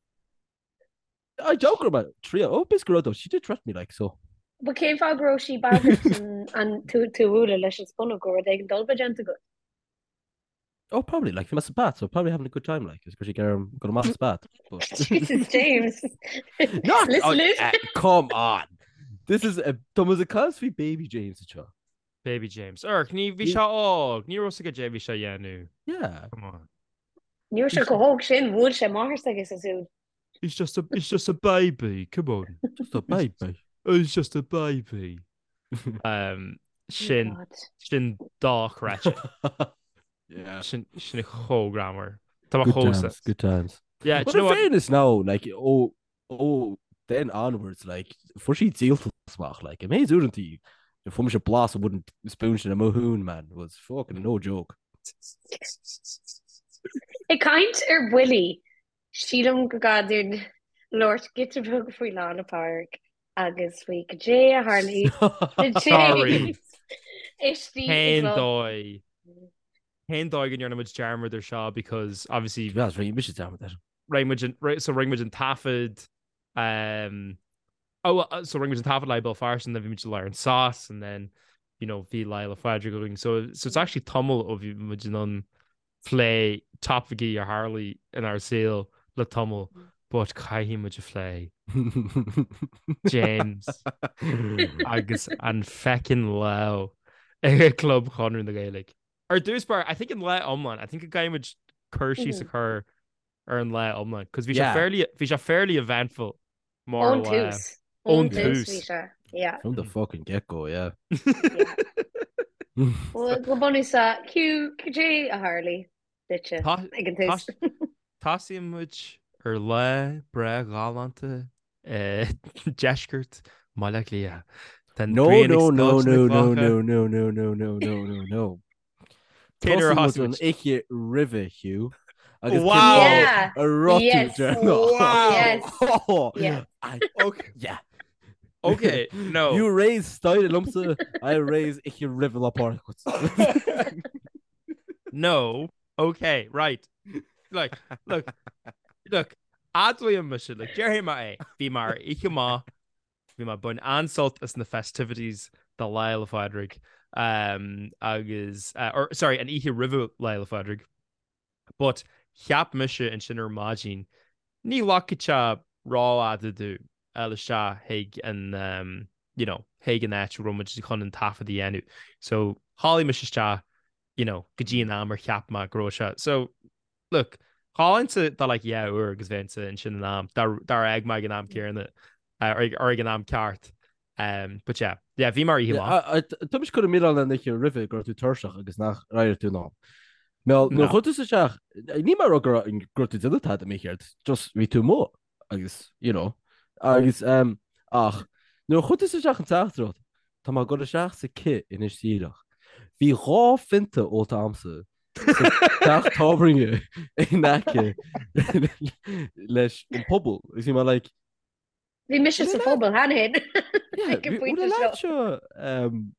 I doubt go raibh mé triail. Oh, b'fhéidir go raibh though. She did threaten me like, so. But cén fáth go raibh sí bagrairt an tú tú a bhualadh leis an spúnóg go raibh rud éigin dolba déanta agat? Oh, probably, like, bhí mé sa bath, so probably having a good time, like, is go sí gearm go amach sa bath. But... Jesus, James. Not, Listen, oh, listen. eh, come on. This is a, tá muid ag caint faoi baby James anseo. Baby James. Erk, ní bhí sé óg, ní raibh a fhios aige caidé bhí sé a dhéanamh. Yeah. Come on. Ní raibh sé chomh hóg sin, bhuail sé máthair s'aige sa súil. He's just a, he's just a baby, come on. Just a baby. He's just a baby. Um, sin, God. sin dochreidte. Yeah. Sin, sin chomh greannmhar. Tá Good chomh times, good times. Yeah, But do you in know what? fairness now, like, ó, ó, then onwards, like, fuair sí díoltas amach, like, an méid uaireanta fuair mise blas an wooden spoon sin i mo thóin, man, was fucking no joke. Ag caint ar bhuillí, sílim go gcaithfidh dúinn labhairt giota beag faoi Lá 'le Pádraig agus faoi caidé a tharlaigh do Sorry. James istigh i Cén gclub. dóigh? Cén dóigh go ndearna muid dearmad ar seo because obviously To be honest, rinne mise dearmad air. rinne muid an, so rinne muid an taifead um, oh, uh, so rinne muid an taifead le Béal Feirste and then bhí muid i lár an sos and then you know bhí Lá 'le Pádraig againn so so it's actually tamall ó bhí muid in ann plé topaicí a tharlaigh inár saol le tamall but caithfidh muid a phlé James agus an feckin lá ag Club Chonradh na Gaeilge. Ar dtús báire, I think an lá iomlán, I think go gcaithfidh muid cur síos a chur ar an lá iomlán, cos bhí sé Yeah. fairly, bhí sé fairly eventful mar Ón lá. tús. Ón Ón tús tús. bhí sé. Yeah. From the fucking get-go, yeah. Yeah. Well, go bunúsach, Hugh, caidé a tharlaigh duitse Tá- ag an tús? Tosaíonn muid ar lá breá galánta i deisceart Bhaile Átha Cliath. Tá an No, ghrian ag no, no, scoilteadh na no, no, gclocha. no, no, no, no, no, no, no, no. Cén uair a Tosaíonn muid thosaigh an muid? oíche roimhe, Hugh. Agus Wow! cén Yeah. a raibh tú Yes. deireanach. Wow! Yes. Oh, Yeah. I, Okay. yeah. Okay, no. You raise style liomsa, I raise oíche roimhe Lá Pádraig. No. Okay, right. Look, look, look, admhaím mise, like, déarfaidh mé é, bhí mé ar oíche maith, bhí mé ag baint an-sult as na festivities do Lá 'le Phádraig, um, agus, uh, or, sorry, an oíche roimhe Lá 'le Phádraig. But cheap mise ansin ar maidin, ní ghlacfaidh sé rófhada domh a dhul isteach chuig an, um, you know, chuig an áit a raibh muid chun an taifead a dhéanamh. So, chodlaigh mise isteach, you know, go dtí an am ar cheap mé go raibh sé. So, look, chodlóinnse do like dhá uair agus bheinnse ansin in am, dár fhág mé ag an am céanna, or ag an am ceart. Um, but yeah, yeah, bhí mé ar oíche mhaith. Tá mise ag cur an milleán ar an oíche roimhe go raibh tú tuirseach agus nach raibh tú in am. Mel, nuair No. a chuaigh tú isteach, ní mar go raibh go raibh tú ag déanamh tada mícheart, just bhí tú amuigh agus, you know, agus um, ach nuair a chuaigh tú isteach an teachtaireacht, tá mé ag dul isteach sa cith anois díreach. Bhí dhá phionta ólta a'msa sa teach tábhairne in aice leis an phuball. Agus bhí mé like, Bhí mise sa phuball cheana féin. Yeah, Ag an bhí- phointe bhfuil seo. leat seo, um,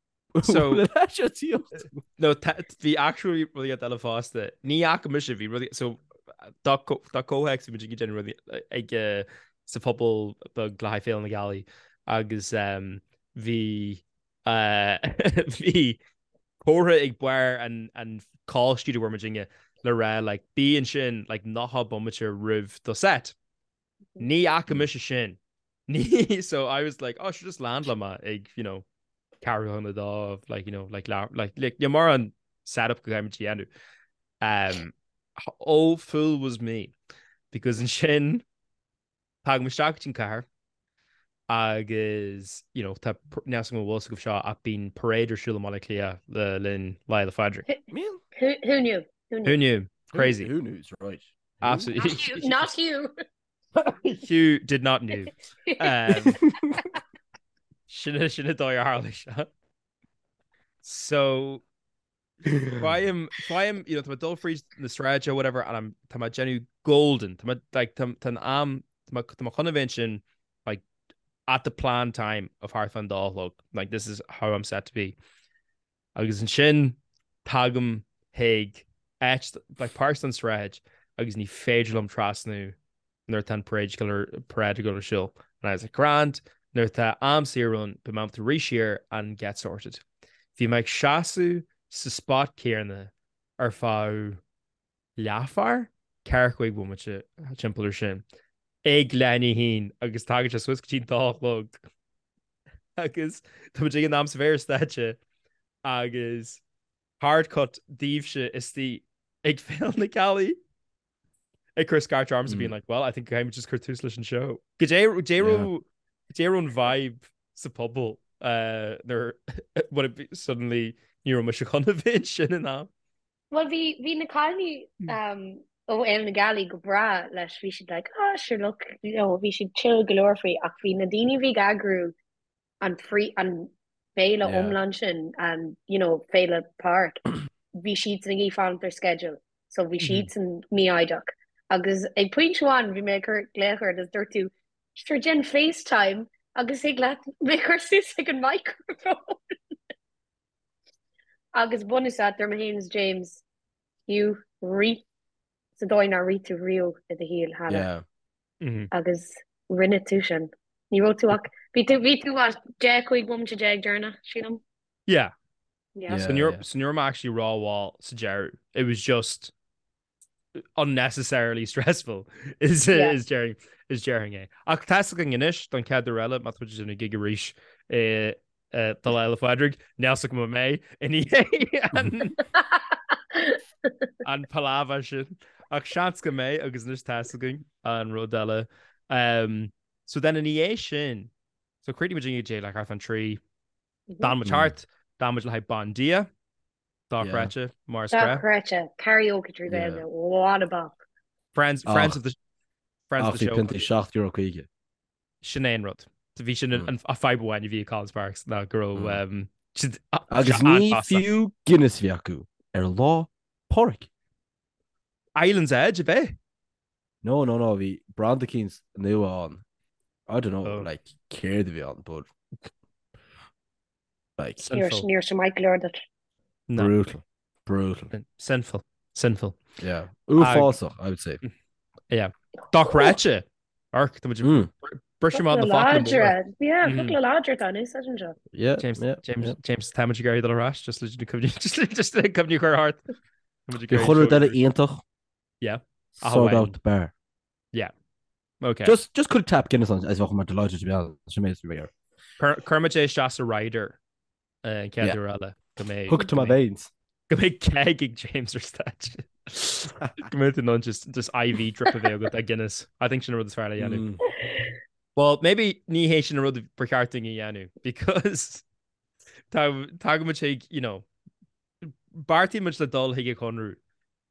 So- bhfuil leat seo tíocht? No, bhí actually rudaí eile fosta. Ní fhaca mise, bhí rudaí, so dá comhthéacs bhí muid ag déanamh rudaí ag eh, sa phuball beag le haghaidh Féile na Gealaí agus um, bhí eh, bhí comhartha ag barr an an call sheet a bhfuair muidinne le rá like bí ansin like 90 bomaite roimh do set. Ní fhaca mise sin. Ní so I was like oh sure just landálfaidh mé ag you know ceathrú chun a dó like you know like like like like you mar an setup go gcaithfidh muid a dhéanamh. Um, oh fool was me because ansin tagaim isteach go dtí an cathair agus you know tá níl a fhios agam an bhfuil a fhios agaibh seo ach bíonn parade ar siúl i mBaile Átha Cliath le linn Lá Fhéile Phádraig. Who, who knew? Who knew? Who knew? Crazy. Who, who knew? Right. Absolutely. Not you. Not you. Hugh did not knew. Um, sin sin an dóigh ar tharla seo. So faighim faighim you know, tá mé ag dul fríd na sráide whatever and I'm tá mé ag déanamh golden tá mé like tá tá an am tá mé tá mé chun a bheith ansin like at the planned time of thart fán dá a chlog like this is how I'm set to be. Agus ansin tagaim chuig áit like páirt den sráid agus ní féidir liom trasnú nuair atá an parade parade ag dul ar siúl. And I was like, grand, nuair atá am saor ann, beidh mé ábalta rith siar and get sorted. Bhí mé ag seasamh sa spot céanna ar feadh leathuair, 45 bomaite timpeall ar sin, ag leath i ndiaidh a haon agus tagann sé suas go dtí an dá a chlog agus tá muid ag an am sa bhéar stáitse agus hard cut daoibhse istigh ag Féile na Gealaí ag cur scairt ormsa being like, well, I think caithfidh muid just cur tús leis an show. Goidé raibh an vibe sa phobal nuair when it suddenly ní raibh mise chun a bheith ansin in am. Bhuel bhí bhí na cailíní ó Fhéile na Gealaí go breá leis, bhí siad like ah sure look, you know, bhí siad chill go leor faoi ach bhí na daoine a bhí ag eagrú an frí an féile yeah. iomlán sin an you know, Féile Pádraig bhí siadsan ag iarraidh fanacht ar schedule so bhí mhm. siadsan mífhoighdeach agus ag pointe amháin bhí mé ag cur glaoch ort agus dúirt tú sure déan FaceTime agus thig leat mé chur suas ag an microphone agus bunúsach dúirt mé féin is James Hugh rith sa dóigh nár rith tú riamh i do shaol cheana. Yeah. Agus rinne tú sin. Ní raibh tú ach, bhí tú, bhí tú what, 10, 15 bomaite deireanach, sílim? Yeah. Yeah. So ní raibh, so ní raibh mé actually rómhall sa deireadh. It was just unnecessarily stressful is Yeah. is déarfainn is déarfainn é. Ach tá 'fhios againn anois don chéad uair eile má tá muid ag déanamh gig arís i do Lá Fhéile Pádraig, níl 'fhios agam an mbeidh i ndiaidh an an palaver sin. Ach seans go mbeidh agus anois tá 'fhios againn an rud eile. Um, so then ina dhiaidh sin, so chríochnaigh muid ag dé like thart fán 3, d'fhan muid thart, d'fhan muid le haghaidh Bandia, dochreidte, mar is gnách. Dochreidte, karaoke trí Ghaeilge, what a bop. Friends, friends of the, friends of Ach the bhí show. piontaí €7.50. Sin é an rud. Bhí sin an fadhb amháin a bhí ag Collins Barracks ná go raibh siad Agus ní fiú Guinness a bhí acu ar Lá Pádraig. Island's Edge, ab é? No, no, no, bhí branda eicínt nua ann. I don't know, like, céard a bhí ann, but like. Sinful. Ní raibh sé maith go leor duit. No. Brutal. Brutal. Sinful. Sinful. Yeah. Uafásach, I would say. Yeah. Dochreidte. Arc, tá muid Mm. briseadh amach na focla móra. Láidre. Yeah, focla láidre atá in úsáid anseo. Yeah, James, yeah, James, yeah. James, tá muid ag iarraidh dul ar ais, just le cuimhne, just le just le cuimhne a chur thart. Tá muid ag Bhí iarraidh chuile rud seo eile iontach. Yeah. Ach Sold amháin. out the bar. Yeah. Okay. Just, just cuir tap Guinness ann, as bheadh mé delighted to be honest. Sin mé is mé air. Cuir cuir muid é isteach sa rider eh, an chéad Yeah. uair eile go mbeidh Hook to my veins. go mbeidh keg ag James ar stáitse. Go mbeidh tú in ann just just IV drip a bheith agat ag Guinness. I think sin an rud is fearr le dhéanamh. Mm. Well, maybe ní hé sin an rud ba cheart dúinn a dhéanamh because tá tagann muid chuig, you know, Beartaíonn muid le dul chuig an Chonradh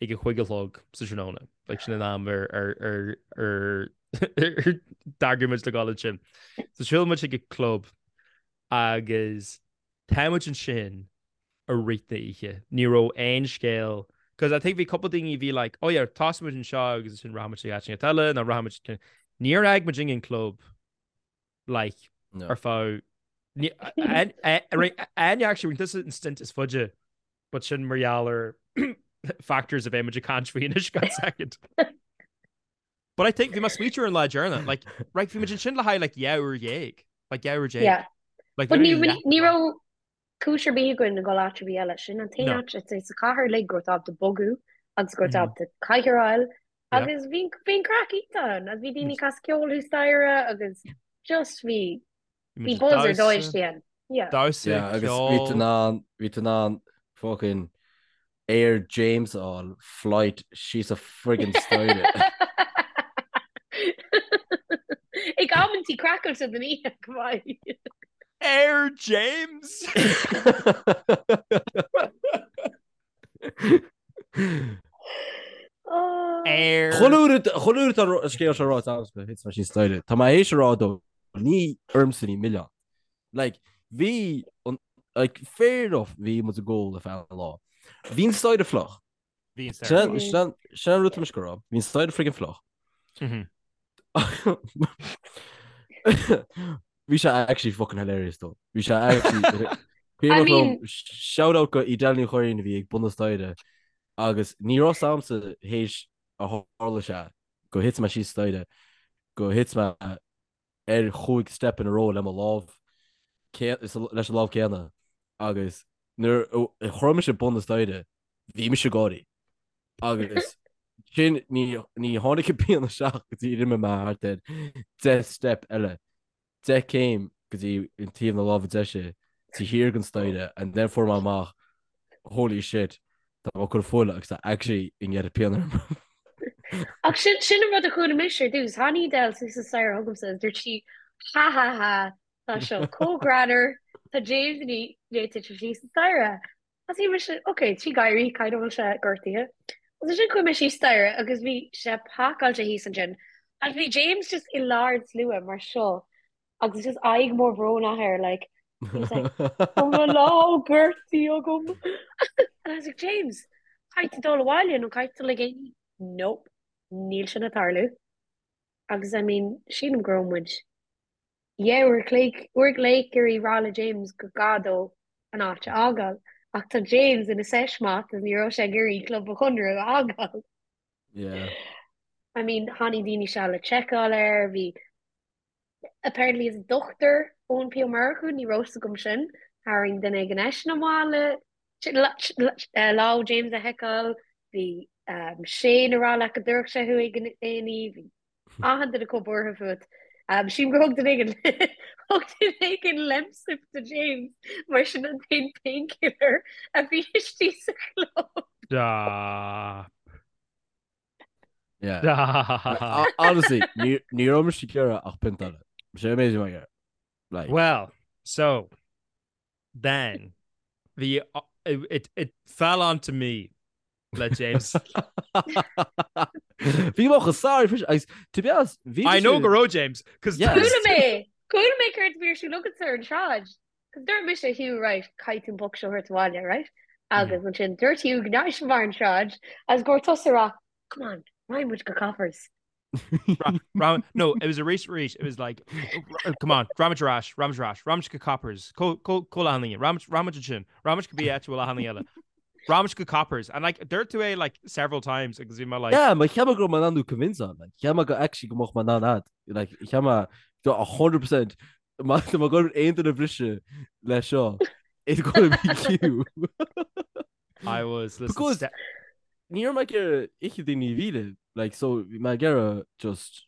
ag a chúig a chlog sa tráthnóna. Like sin an am ar ar ar ar ar d'eagraigh muid le dul ansin. So siúlann muid chuig an club agus tá muid ansin i rith na oíche. Ní raibh aon scéal because I think bhí cúpla daoine a bhí like, oh yeah, tosóidh muid anseo agus ansin rachaidh muid chuig áit éigin eile nó rachaidh muid Níor fhág muid an club like No. ar feadh Áine actually rinne tusa an stint is faide but sin mar gheall ar factors a bheidh muid ag caint faoi anois gan second. But I think bhí mé ag smaoitiú ar an lá deireanach like right bhí muid ansin le haghaidh like 12 uair like 12 uair. Yeah. Like But ní literally leath ní an lá. raibh cúis ar bith againn a dhul áit ar bith eile. Sin an t-aon No. áit it's sa chathair uilig go raibh tú ábalta bogadh agus go raibh tú ábalta cathaoir a fháil Yeah. agus bhí bhí an craic iontach ann agus bhí daoine ag casadh ceoil thuas staighre agus just bhí Bhí bhí muid ag buzz ar dóigh damhsa, istigh ann. Yeah. damhsa, Yeah, agus bhí tú ceol. in ann, bhí tú in ann fucking Air James a fháil, flight síos an friggin staighre. Ag amantaí craiceáilte den oíche, go maith. Air James! Air. Chuile uair atá an scéal seo ráite agamsa, thit mé síos staighre. Tá mé théis a rá dó, ní ormsa ní milleán. Like, bhí an, like, fair enough, bhí muid ag ól ar feadh an lá. Bhí an staighre fliuch. Bhí an staighre fliuch. Sin sin an rud tá mise ag rá. Bhí an staighre friggin fliuch. Bhí sé actually fucking hilarious though. Bhí sé actually I mean shout out go Edel Ní Churraoin a bhí ag bun na staighre agus ní raibh a fhios a'msa théis a tharla sé go thit mé síos staighre. go thit mé ar chúig step in a row le mo lámh leis an lámh céanna agus nuair a chroith mise bun na staighre bhí mise ag gáirí agus sin ní ní tháinig an pian isteach go dtí rinne mé thart ar 10 step eile 10 céim go dtí an taobh na láimhe deise taobh thiar den staighre and then fuair mé amach holy shit tá mé ag cur fuil agus tá actually i ndiaidh pian orm. Ach sin sin an rud a chuala mise ar dtús. Tháinig Edel suas an staighre chugamsa agus dúirt sí ha ha ha tá seo chomh greannmhar tá James i ndiaidh titim síos an staighre. Agus bhí mise ok tá sé ag gáirí caithfidh go bhfuil sé gortaithe. Agus ansin chuaigh mé síos staighre agus bhí sé pacáilte thíos ansin agus bhí James just i lár an tslua mar seo agus just aghaidh mór bhrónach air like he was like Tá mo lámh gortaithe agam. And I was like James caithfidh tú dul abhaile nó caithfidh tú dul ag A&E. Nope, níl sin ag tarlú. Agus I mean sílim go raibh muid Yeah, uair a chloig, uair a chloig ag iarraidh rá le James go gá dó an áit a fhágáil. Ach tá James ina sesh maith agus ní raibh sé ag iarraidh Club an Chonradh a fhágáil. Yeah. I mean, tháinig daoine isteach le seiceáil air, bhí apparently is dochtúir Eoin P Ó Murchú, ní raibh fhios agam sin, tharraing duine éigin eisean amach le lámh James a sheiceáil, bhí Shane ag rá leat go dtabharfadh sé thú ag an A&E, bhí Achan duine chomh buartha fút. Sílim gur thug duine éigin thug duine éigin Lemsip do James mar sin an t-aon painkiller a bhí istigh sa chlub. Stop. Yeah. Stop. Honestly, ní ní raibh mise ag iarraidh ach pint eile. Sé an méid a bhí mé ag iarraidh. Like. Well, so then the it it fell onto me le James. Bhí mé chomh sorry freisin agus to be honest bhí I know go raibh James cos Yeah. Chuala mé! Chuala mé céard a bhí ar siúl agatsa ar an tsráid. Cos dúirt mise Hugh right caithfidh tú an boc seo a thabhairt abhaile right? Agus ansin dúirt Hugh go ndeachaigh sé barr an tsráid agus go raibh tusa ag rá come on raghaidh muid go Coppers. No, it was arís arís it was like come on raghaimid ar ais raghaimid ar ais raghaimid go Coppers có leathan raghaimid ansin raghaimid go bí áit bhfuil achan duine eile raghaimid go Coppers and like dúirt tú é like several times agus bhí mé like Yeah, mar cheap mé go raibh mé in ann thú convince-áil like cheap mé go actually go mbeadh mé in ann ad like cheap mé do 100% má tá mé ag goil aon duine a bhriseadh le seo it's gonna be you. I was listen, Because ní raibh mé ag iarraidh oíche daoine a mhilleadh like so bhí mé ag iarraidh just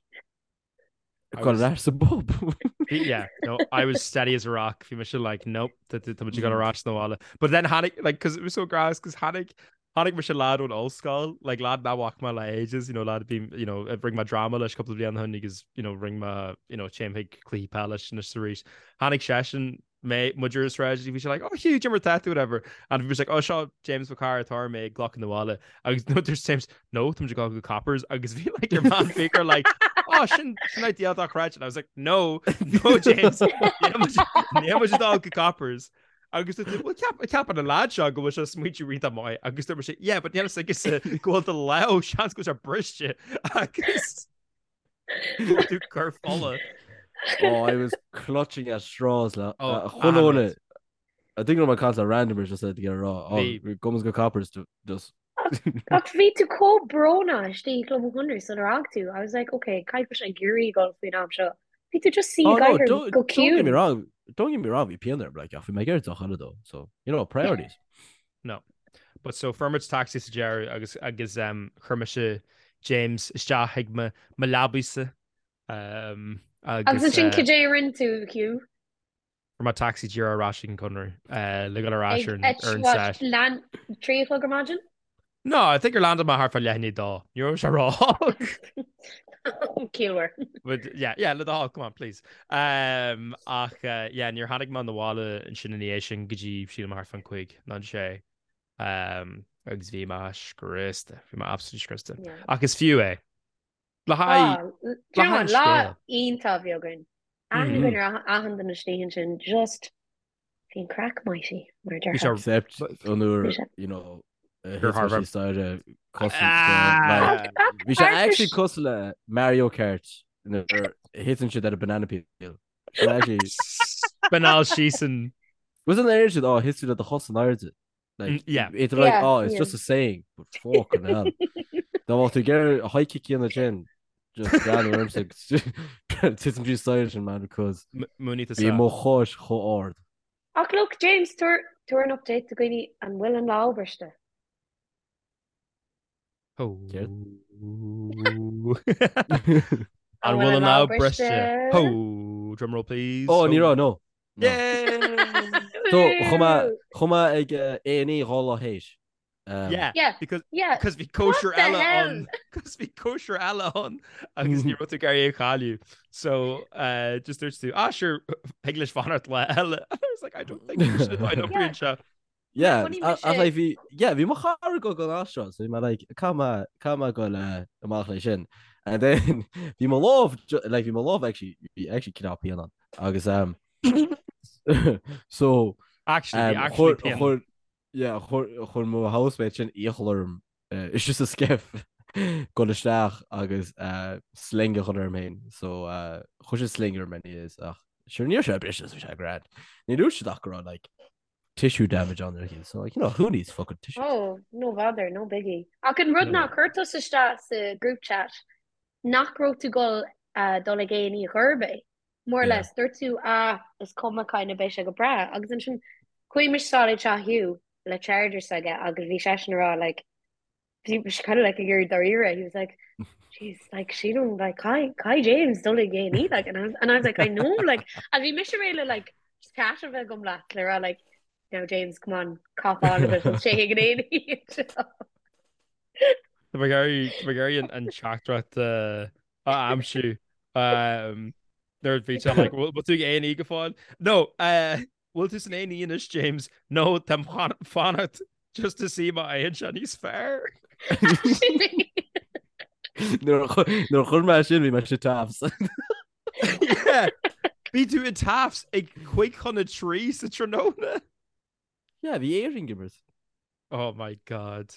I dul was ar ais sa bpub. yeah, no, I was steady as a rock. Bhí mise like, nope, tá tá muid ag dul ar ais na bhaile. But then tháinig, like, cause it was so gross, cause tháinig, tháinig mise lad ón ollscoil, like, lad nach bhfaca mé le ages, you know, lad a bhí, you know, a rinne mé dráma leis cúpla bliain ó shin agus, you know, rinne mé, you know, téim chuig cluichí peile leis anois arís. Tháinig seisean mé muid ar an sráid bhí sé like oh Hugh cad é mar tá tú whatever and bhí mise like oh seo James mo chara atá mé ag glacadh na bhaile agus no there's James no tá muid ag dul go Coppers agus bhí like your man Baker like oh sin sin idea dochreidte and I was like no no James níl muid ag dul go Coppers agus dúirt well ceap ceapann an lad seo go bhfuil sé smaointiú iontach maith agus dúirt mise yeah but níl a fhios aige go bhfuil do lámh seans go bhfuil sé briste agus Tú cur fola. Oh, I was clutching at straws le oh, chuile I think my caint random just said to get a rá. Oh, gabhaimis go Coppers to just Ach bhí tú chomh brónach istigh i gClub an Chonradh sular fhág tú. I was like, okay, caithfidh sé ag iarraidh dul faoin am seo. Bhí tú just suí Oh no, ag don't, go don't get me ciúin. wrong. Don't get me wrong, bhí pian orm, like, ach bhí mé ag iarraidh deoch eile though. So, you know, priorities. No. But so fuair muid taxi sa deireadh agus agus um, chuir mise James isteach ag mo mo leabaidh-sa um, Agus agus ansin uh, cad é a rinne tú, Hugh? fuair mé taxi díreach ar ais ag an Conradh uh, le dul ar ais Ag ar an at ar an what, set. lean 3 a chlog ar maidin? No, I think gur landáil mé thart fá leath i ndiaidh a dó. Ní raibh sé ró-óg. Ciallmhar. But yeah, yeah, le do thoil, come on, please. Um, ach uh, yeah, níor tháinig mé 'na bhaile ansin ina dhiaidh sin go dtí sílim thart fán cúig nó an sé. Um, agus bhí mé scriosta, bhí mé absolutely scriosta. Yeah. Ach is fiú é. Le haghaidh, Ah, le do you know haghaidh what, an lá scéil. iontach a bhí againn. Aithne Mm. againn ar achan duine istigh ansin, just Bhí an craic mighty, mar a Bhí déarfá. sé Except an uair, Bhí sé. you know, a gur thit mé thar síos staighre cosúil Ah! like, bhí sé actually cosúil le Mario Kart nuair a thiteann siad ar a banana peel. Sin actually Spineáil síos an Was an air siad, oh, thit tú le do chos in airde. Like, Mm, yeah. it's like, Yeah, oh, it's yeah. just a saying, but fucking hell. Dá mbeadh tú ag iarraidh a high kick a dhéanamh sin. Just breathnú ormsa titim trí staighre sin man because Múiní bhí mo chois chomh ard. Ach look James, tabhair tabhair an update do dhaoine an bhfuil an lámh briste? Céard? An bhfuil an lámh briste? Ho! Drumroll please. Oh ní raibh no. No. Yay! So chuaigh mé chuaigh mé ag A&E 2 lá théis. Um, yeah, yeah, because yeah. because bhí cóisir What the eile hell? ann because bhí cóisir eile ann agus ní raibh tú ag iarraidh é a chailleadh. So uh, just dúirt tú ah sure thig leis fanacht lá eile. I was like I don't think we should I don't Yeah. seo. Yeah, Funny a- mise- ach like bhí yeah, bhí mo chara ag dul an seo, so bhí mé like caithfidh mé caithfidh mé dul uh, amach leis sin. And then bhí mo lámh ju- like bhí mo lámh actually bhí actually cineál pian ann. Agus um so Actually, bhí um, actually chuir pian. chuir Yeah, chuir mo housemate sin iachall orm istigh sa SCIF dul isteach agus sling a chur orm féin. So chuir sé sling orm anyways ach sure ní raibh sé briste so bhí sé grand. Ní dúirt siad ach go raibh like tissue damage ann ar cinn. So like you know who needs fucking tissues? Oh, no bother, no biggie. Ach an rud ná chuir tusa isteach sa group chat nach raibh tú dul dul ag A&E chor ar bith. More or less, dúirt tú, ah, is cuma kind of beidh sé go breá. Agus ansin chuaigh mise sall ag teach Hugh le charger s'aige agus bhí seisean ag rá like, bhí sé kind of like ag iarraidh dáiríre, he was like, jeez, like sílim like caithfidh caithfidh James dul ag A&E like and I was, and I was like I know like and bhí mise réidh le like chat a bheith agam leat le rá like now James come on cop on a bit let's téigh ag an A&E anseo. Tá mé ag iarraidh tá mé ag iarraidh an an teachtaireacht a aimsiú. Nuair a bhí sé like, bhfuil tú ag A&E go fóill? No, bhfuil tú san A&E anois, James? No, táim fanacht just to see má éiríonn sé níos fearr. Nuair a chuir mé sin bhí mé sa TAFs. Yeah, bhí tú i TAFs ag 2:55 sa tráthnóna. Yeah, bhí Éirinn ag imirt. Oh my God.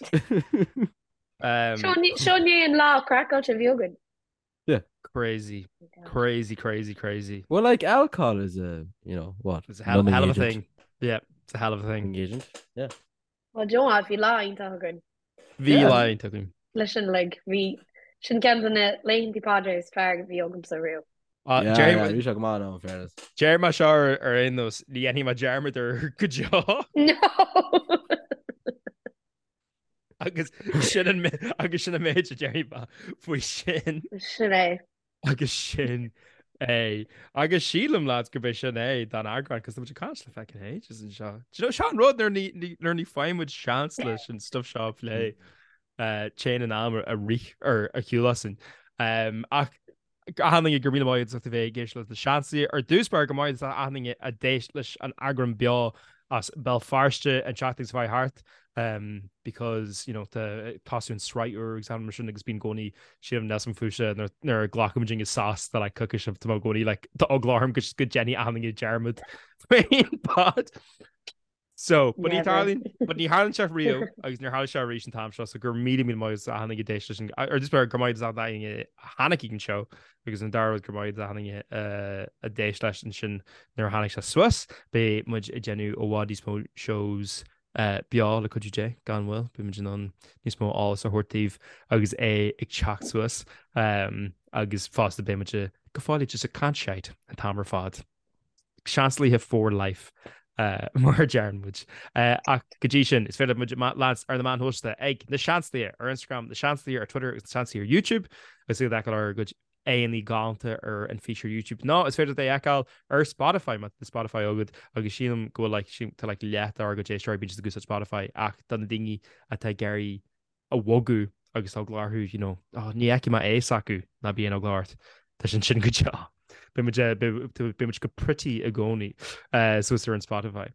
Seo ní an lá craiceáilte a bhí againn. Yeah. Crazy. Crazy, crazy, crazy. Well, like alcohol is a, you know, what? It's a hell, hell of a thing. Yeah, it's a hell of a thing. Agent. Yeah. Well, do you know what? Bhí lá iontach againn. Bhí lá iontach againn. Leis an like, bhí sin ceann de na laethanta pod is fearr a bhí agamsa riamh. Yeah, yeah, bhí sé go maith in fairness. Deir mé seo ar aon nós, ní dhéanfaidh mé dearmad air go deo. No! Agus sin an agus sin an méid a déarfaidh mé faoi sin. Sin é. Agus sin é. Agus sílim lads gurb é sin é don eagrán, cos tá muid ag caint le feckin ages anseo. Do you know, seo an rud nuair ní nuair ní fhaigheann muid seans leis an stuff seo a phlé, téann an am a rith ar a shiúl asainn. Ach Achan duine go raibh míle maith agat as ucht a bheith ag éisteacht leis na Seansálaithe. Ar dtús báire go maith as achan duine a d'éist leis an eagrán beo as Béal Feirste an tseachtain seo chuaigh thart because you know tá tosú an sraith úr agus mar sin agus bíonn i gcónaí sílim Nelson fúise nuair a ghlacann muid sos do like coicís tá mé i gcónaí like tá eagla orm go ndéanfaidh achan duine dearmad faoin pod. So, but ní tharlaíonn, but ní tharlaíonn sé riamh agus níor tharla sé arís an t-am seo, so go raibh míle míle maith agat as achan duine a d'éist leis an, ar dtús báire go raibh maith agat as achan duine a tháinig ag an seó agus an dara rud go raibh maith agat as achan duine a d'éist leis ansin nuair a tháinig sé suas. Beidh muid ag déanamh i bhfad níos mó shows beo le cuidiú Dé, gan mhoill, beidh muid in ann níos mó eolas a thabhairt daoibh agus é ag teacht suas agus fosta beidh muid go fóill just ag caint shite an t-am ar fad. Seansálaithe for life mar a deireann muid. Ach go dtí sin, is féidir muid leanstan ar na meáin shóisialta ag Na Seansálaithe ar Instagram, Na Seansálaithe ar Twitter agus Na Seansálaithe ar YouTube agus iad a fheiceáil ár gcuid aghaidheanna galánta ar an fís ar YouTube. Nó is féidir é a fheiceáil ar Spotify má tá Spotify agat agus sílim go bhfuil like, tá like leath dár gcuid éisteoirí bíonn siad ag úsáid Spotify ach do na daoine atá ag iarraidh a bhogadh agus tá eagla orthu, you know, oh, ní fheicfidh mé é s'acu, ná bíonn eagla ort. Tá sin sin go deo. Beidh muid, eh, beidh muid go pretty i gcónaí eh, suas ar an Spotify.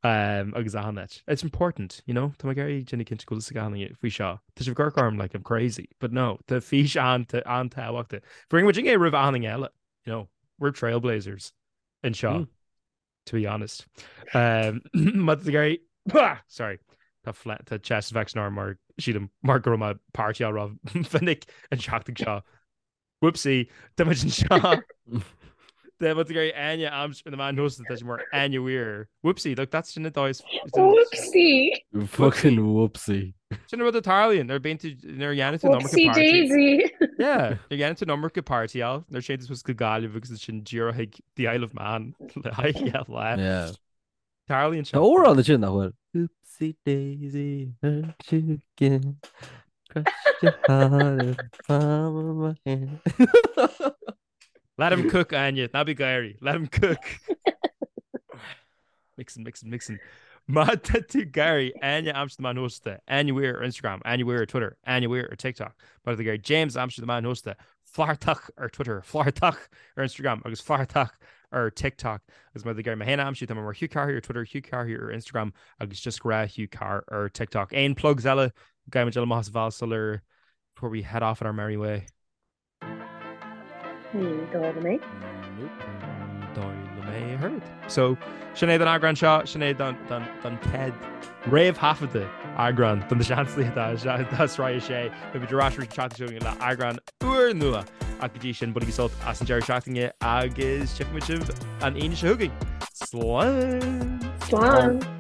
Um, agus achan áit. It's important, you know, Tá mé ag iarraidh déanamh cinnte go bhfuil fhios ag achan duine faoi seo. Tá sibh ag amharc orm like I'm crazy, but no, tá fís an-tábhachtach. Fuair muid é roimh achan duine eile, you know, we're trailblazers anseo. Mm. to be honest. Um, má tá tú sorry, tá tá chest infection orm mar sílim mar go raibh mé ag partyáil ró-mhinic an tseachtain seo. Whoopsie, tá muid anseo. Tá muid ag iarraidh Áine a aimsiú ar na meáin shóisialta, tá sí mar Áine Weir. Whoopsie, look, that's sin an dóigh. Whoopsie! Fucking whoopsie. Sin an rud a tarlaíonn nuair bíonn tú nuair a dhéanann tú an iomarca Whoopsie party. daisy! Yeah, nuair a dhéanann tú an iomarca partyáil, nuair a théann tú suas go Gaillimh agus ansin díreach chuig The Isle of Man le haghaidh lá. Yeah. Tarlaíonn sé. Tá amhrán ansin nach bhfuil. Oopsie daisy, hurt you again. Crushed your heart in the palm of my hand. Let him cook, Áine, ná bí ag gáirí. Let him cook. Mixing, mixing, mixing. Má tá tú ag iarraidh Áine a aimsiú ar na meáin shóisialta, Áine Weir ar Instagram, Áine Weir ar Twitter, Áine Weir ar TikTok. Má tá tú ag iarraidh James a aimsiú ar na meáin shóisialta, Flathartach ar Twitter, Flathartach ar Instagram agus Flathartach ar TikTok. Agus má tá tú ag iarraidh mé féin a aimsiú, tá mé mar Hugh Carr ar Twitter, Hugh Carr ar Instagram agus just grá Hugh Carr ar TikTok. Aon plugs eile gcaithfidh muid dul amach as an bhall sular before we head off on our merry way? Ní dóigh liom é. Nope. Ní dóigh liom é a thuilleadh. So, sin é don eagrán seo, sin é don, don, don chéad réamhthaifeadta eagrán don Seansálaithe de Sraith 6. Beidh muid ar ais arís an tseachtain seo chugainn le eagrán úrnua. Ach go dtí sin, bainigí sult as an deireadh seachtaine agus tchífidh muid sibh an Aoine seo chugainn. Slán! Slán!